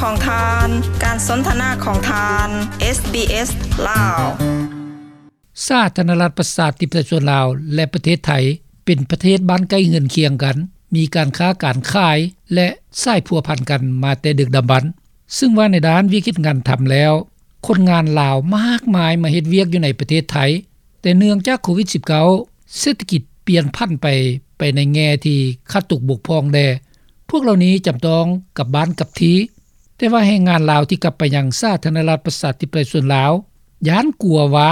ຂອງທ່ານ, ການສົນທະນາຂອງທ່ານ ເອສບີເອສ ລາວ. ສາທາລະນະລັດ ປະຊາທິປະໄຕ ສ່ວນລາວ ແລະ ປະເທດໄທ ເປັນປະເທດບ້ານໃກ້ເຮືອນຄຽງກັນ, ມີການຄ້າການຂາຍ ແລະ ສາຍພົວພັນກັນມາແຕ່ດຶກດຳບັນ. ຊຶ່ງວ່າໃນດ້ານວຽກເຮັດງານທຳແລ້ວ, ຄົນງານລາວມາກມາຍມາເຮັດວຽກຢູ່ໃນປະເທດໄທ, ແຕ່ເນື່ອງຈາກໂຄວິດສິບເກົ້າ ເສດຖະກິດປ່ຽນຜັນໄປ, ໄປໃນແງ່ທີ່ຂາດຕົກບົກຜ່ອງແດ່, ພວກເຫຼົ່ານີ້ຈຳຕ້ອງກັບບ້ານກັບທີ່. ແຕ່ວ່າແຮງງານລາວທີ່ກັບໄປຍັງສາທາລະນະລັດ ປະຊາທິປະໄຕ ສ່ວນລາວ ຢ້ານກົວວ່າ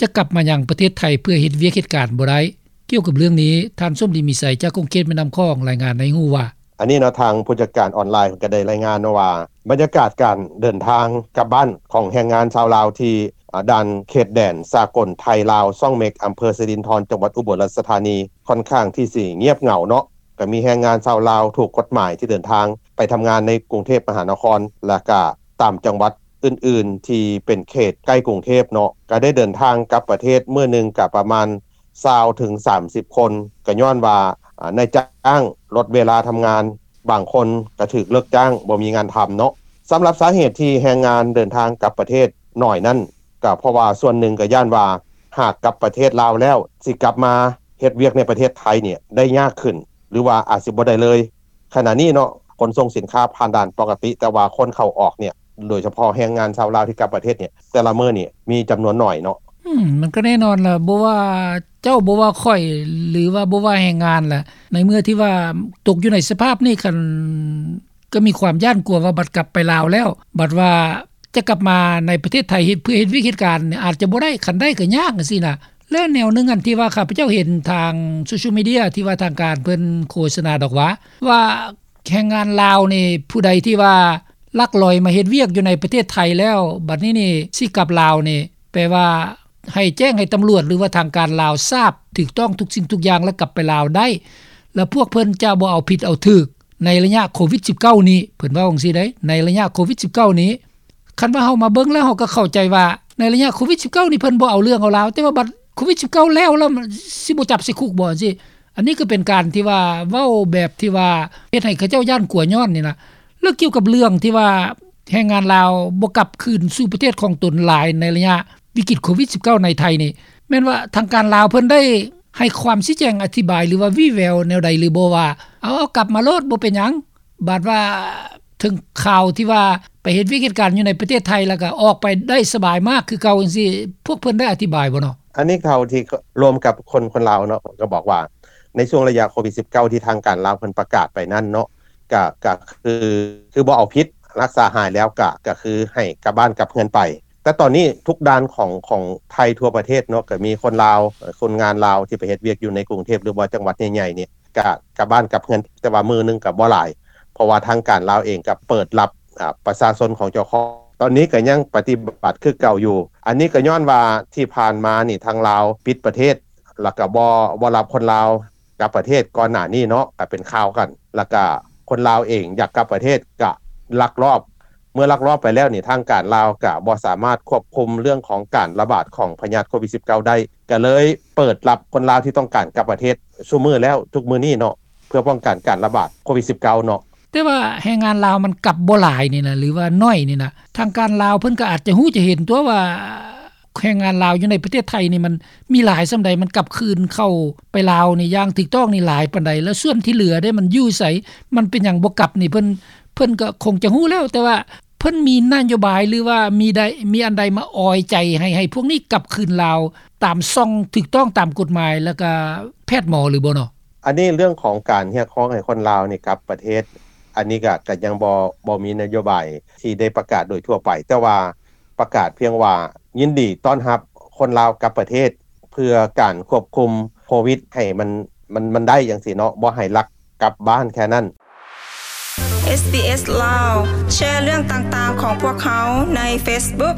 ຈະກັບມາຍັງປະເທດໄທເພື່ອເຮັດວຽກເຮັດການບໍ່ໄດ້. ກ່ຽວກັບເລື່ອງນີ້, ທ່ານ ສົມດີ ມີໄຊ ຈາກຂົງເຂດແມ່ນ້ຳຂອງ ລາຍງານໃຫ້ຮູ້ວ່າ, ອັນນີ້ເນາະ, ທາງຜູ້ຈັດການອອນລາຍເພິ່ນກໍໄດ້ລາຍງານເນາະວ່າ ບັນຍາກາດການເດີນທາງກັບບ້ານຂອງແຮງງານຊາວລາວທີ່ ອາ ດ່ານເຂດແດນສາກົນໄທລາວ ຊ່ອງເມັກ ອຳເພີສະລິນທອນ ຈັງຫວັດອຸບົນລາຊະທານີ ຄ່ອນຂ້າງທີ່ຊິງຽບເຫງົາເນາະ. ກໍມີແຮງງານຊາວລາວຖືກກົດໝາຍທີ່ເດີນທາງໄປທຳງານໃນກຸງເທບມະຫານະຄອນ ແລະ ກະຕາມຈັງຫວັດອື່ນໆທີ່ເປັນເຂດໃກ້ກຸງເທບເນາະ, ກະໄດ້ເດີນທາງກັບປະເທດມື້ໜຶ່ງກະປະມານຊາວເຖິງສາມສິບຄົນ, ກໍຍ້ອນວ່າ ອາ ນາຍຈ້າງລົດເວລາທຳງານ, ບາງຄົນກໍຖືກເລີກຈ້າງ ບໍ່ມີງານທຳເນາະ. ສຳລັບສາເຫດທີ່ແຮງງານເດີນທາງກັບປະເທດໜ້ອຍນັ້ນ, ກໍເພາະວ່າສ່ວນໜຶ່ງກໍຢ້ານວ່າ ຫາກກັບປະເທດລາວແລ້ວ ຊິກັບມາເຮັດວຽກໃນປະເທດໄທນີ້ໄດ້ຍາກຂຶ້ນ ຫຼືວ່າອາດຊິບໍ່ໄດ້ເລີຍ. ຂະນະນີ້ເນາະ, ຂົນສົ່ງສິນຄ້າຜ່ານດ່ານປົກກະຕິ, ແຕ່ວ່າຄົນເຂົ້າອອກນີ້ ໂດຍສະເພາະແຮງງານຊາວລາວທີ່ກັບປະເທດນີ້ ແຕ່ລະມື້ນີ້ມີຈຳນວນໜ້ອຍເນາະ. ອືມ ມັນກໍແນ່ນອນລະ, ບໍ່ວ່າເຈົ້າ ບໍ່ວ່າຂ້ອຍ ຫຼືວ່າບໍ່ວ່າແຮງງານລະ, ໃນເມື່ອທີ່ວ່າຕົກຢູ່ໃນສະພາບນີ້, ຄັນ ກໍມີຄວາມຢ້ານກົວວ່າບັດກັບໄປລາວແລ້ວ, ບັດວ່າຈະກັບມາໃນປະເທດໄທເຮັດ ເພື່ອເຮັດວຽກເຮັດການນີ້ ອາດຈະບໍ່ໄດ້, ຄັນໄດ້ກໍຍາກຈັ່ງຊີ້ນະ. ແລະ ແນວໜຶ່ງອັນທີ່ວ່າຂ້າພະເຈົ້າເຫັນທາງໂຊຊຽວມີເດຍ ທີ່ວ່າທາງການເພິ່ນໂຄສະນາດອກວ່າ ວ່າແຮງງານລາວນີ້ ຜູ້ໃດທີ່ວ່າລັກລອຍມາເຮັດວຽກຢູ່ໃນປະເທດໄທແລ້ວ ບັດນີ້ນີ້ຊິກັບລາວນີ້ ແປວ່າໃຫ້ແຈ້ງໃຫ້ຕຳຫຼວດ ຫຼືວ່າທາງການລາວຊາບ ຖືກຕ້ອງທຸກສິ່ງທຸກຢ່າງ ແລ້ວກັບໄປລາວໄດ້. ແລ້ວພວກເພິ່ນຈະບໍ່ເອົາຜິດເອົາຖືກໃນໄລຍະໂຄວິດສິບເກົ້ານີ້, ເພິ່ນເວົ້າຈັ່ງຊີ້ເດ້, ໃນໄລຍະໂຄວິດສິບເກົ້ານີ້. ຄັນວ່າເຮົາມາເບິ່ງແລ້ວ ເຮົາກໍເຂົ້າໃຈວ່າໃນໄລຍະໂຄວິດສິບເກົ້ານີ້ ເພິ່ນບໍ່ເອົາເລື່ອງເອົາລາວ, ແຕ່ວ່າບັດໂຄວິດສິບເກົ້າແລ້ວ ແລ້ວຊິບໍ່ຈັບໃສ່ຄຸກບໍ່ ຈັ່ງຊີ້. ອັນນີ້ກໍເປັນການທີ່ວ່າເວົ້າແບບທີ່ວ່າເຮັດໃຫ້ເຂົາເຈົ້າຢ້ານກົວຍ້ອນນີ້ນະ. ແລ້ວກ່ຽວກັບເລື່ອງທີ່ວ່າແຮງງານລາວບໍ່ກັບຄືນສູ່ປະເທດຂອງຕົນຫຼາຍໃນໄລຍະວິກິດໂຄວິດສິບເກົ້າໃນໄທນີ້, ແມ່ນວ່າທາງການລາວເພິ່ນໄດ້ໃຫ້ຄວາມຊີ້ແຈງອະທິບາຍ ຫຼືວ່າວີ່ແວວແນວໃດຫຼືບໍ່ ວ່າ ເອົາ ເອົາກັບມາໂລດ ບໍ່ເປັນຫຍັງ? ບາດວ່າເຖິງຄາວທີ່ວ່າໄປເຮັດວຽກເຮັດການຢູ່ໃນປະເທດໄທ ແລ້ວກໍອອກໄປໄດ້ສະບາຍມາກຄືເກົ່າຈັ່ງຊີ້, ພວກເພິ່ນໄດ້ອະທິບາຍບໍ່ເນາະ? ອັນນີ້ເທົ່າທີ່ລວມກັບຄົນ ຄົນລາວເນາະ ກໍບອກວ່າ ໃນຊ່ວງໄລຍະໂຄວິດສິບເກົ້າ ທີ່ທາງການລາວເພິ່ນປະກາດໄປນັ້ນເນາະ ກະ ກະຄື ຄືບໍ່ເອົາຜິດ ຮັກສາຫາຍແລ້ວ ກະ ກະຄືໃຫ້ກັບບ້ານກັບເຮືອນໄປ. ແຕ່ຕອນນີ້ທຸກດ່ານຂອງ ຂອງໄທທົ່ວປະເທດເນາະ ກະມີຄົນລາວ ຄົນງານລາວທີ່ໄປເຮັດວຽກຢູ່ໃນກຸງເທບ ຫຼືວ່າຈັງຫວັດໃຫຍ່ໆນີ້ ກະກັບບ້ານກັບເຮືອນ, ແຕ່ວ່າມື້ໜຶ່ງກະບໍ່ຫຼາຍ ເພາະວ່າທາງການລາວເອງກະເປີດຮັບ ອາ ປະຊາຊົນຂອງເຈົ້າຂອງ. ຕອນນີ້ກະຍັງປະຕິບັດຄືເກົ່າຢູ່. ອັນນີ້ກະຍ້ອນວ່າທີ່ຜ່ານມານີ້ທາງລາວປິດປະເທດ ແລ້ວກະບໍ່ ບໍ່ຮັບຄົນລາວກັບປະເທດ. ກ່ອນໜ້ານີ້ເນາະ ກະເປັນຂ່າວກັນ ແລ້ວກະຄົນລາວເອງຢາກກັບປະເທດກະລັກລອບ. ເມື່ອລັກລອບໄປແລ້ວນີ້ ທາງການລາວກະບໍ່ສາມາດຄວບຄຸມເລື່ອງຂອງການລະບາດຂອງພະຍາດໂຄວິດສິບເກົ້າໄດ້ ກະເລີຍເປີດຮັບຄົນລາວທີ່ຕ້ອງການກັບປະເທດຊຸມື້ແລ້ວ ທຸກມື້ນີ້ເນາະ ເພື່ອປ້ອງກັນການລະບາດໂຄວິດສິບເກົ້າເນາະ. ແຕ່ວ່າແຮງງານລາວມັນກັບບໍ່ຫຼາຍນີ້ນະ ຫຼືວ່າໜ້ອຍນີ້ນະ, ທາງການລາວເພິ່ນກໍອາດຈະຮູ້ຈະເຫັນຕົວະວ່າ ແຮງງານລາວຢູ່ໃນປະເທດໄທນີ້ມັນມີຫຼາຍສ່ຳໃດ, ມັນກັບຄືນເຂົ້າໄປລາວນີ້ຢ່າງຖືກຕ້ອງນີ້ຫຼາຍປານໃດ, ແລ້ວສ່ວນທີ່ເຫຼືອເດ້ ມັນຢູ່ໃສ, ມັນເປັນຫຍັງບໍ່ກັບນີ້ ເພິ່ນ ເພິ່ນກໍຄົງຈະຮູ້ແລ້ວ, ແຕ່ວ່າເພິ່ນມີນະໂຍບາຍ ຫຼືວ່າມີໄດ້ ມີອັນໃດມາອອຍໃຈໃຫ້ ໃຫ້ພວກນີ້ກັບຄືນລາວຕາມຊ່ອງຖືກຕ້ອງຕາມກົດໝາຍ ແລ້ວກໍແພດໝໍຫຼືບໍ່ເນາະ? ອັນນີ້ເລື່ອງຂອງການຮຽກຮ້ອງໃຫ້ຄົນລາວນີ້ກັບປະເທດ, ອັນນີ້ກໍ ກໍຍັງບໍ່ ບໍ່ມີນະໂຍບາຍທີ່ໄດ້ປະກາດໂດຍທົ່ວໄປ, ແຕ່ວ່າ ປະກາດພຽງວ່າຍິນດີຕ້ອນຮັບຄົນລາວກັບປະເທດ ເພື່ອການຄວບຄຸມໂຄວິດໃຫ້ມັນ ມັນ ມັນໄດ້ຈັ່ງຊີ້ເນາະ, ບໍ່ໃຫ້ລັກກັບບ້ານແຄ່ນັ້ນ. ເອສບີເອສ ລາວ ແຊເລື່ອງຕ່າງໆຂອງພວກເຮົາໃນເຟສບຸກ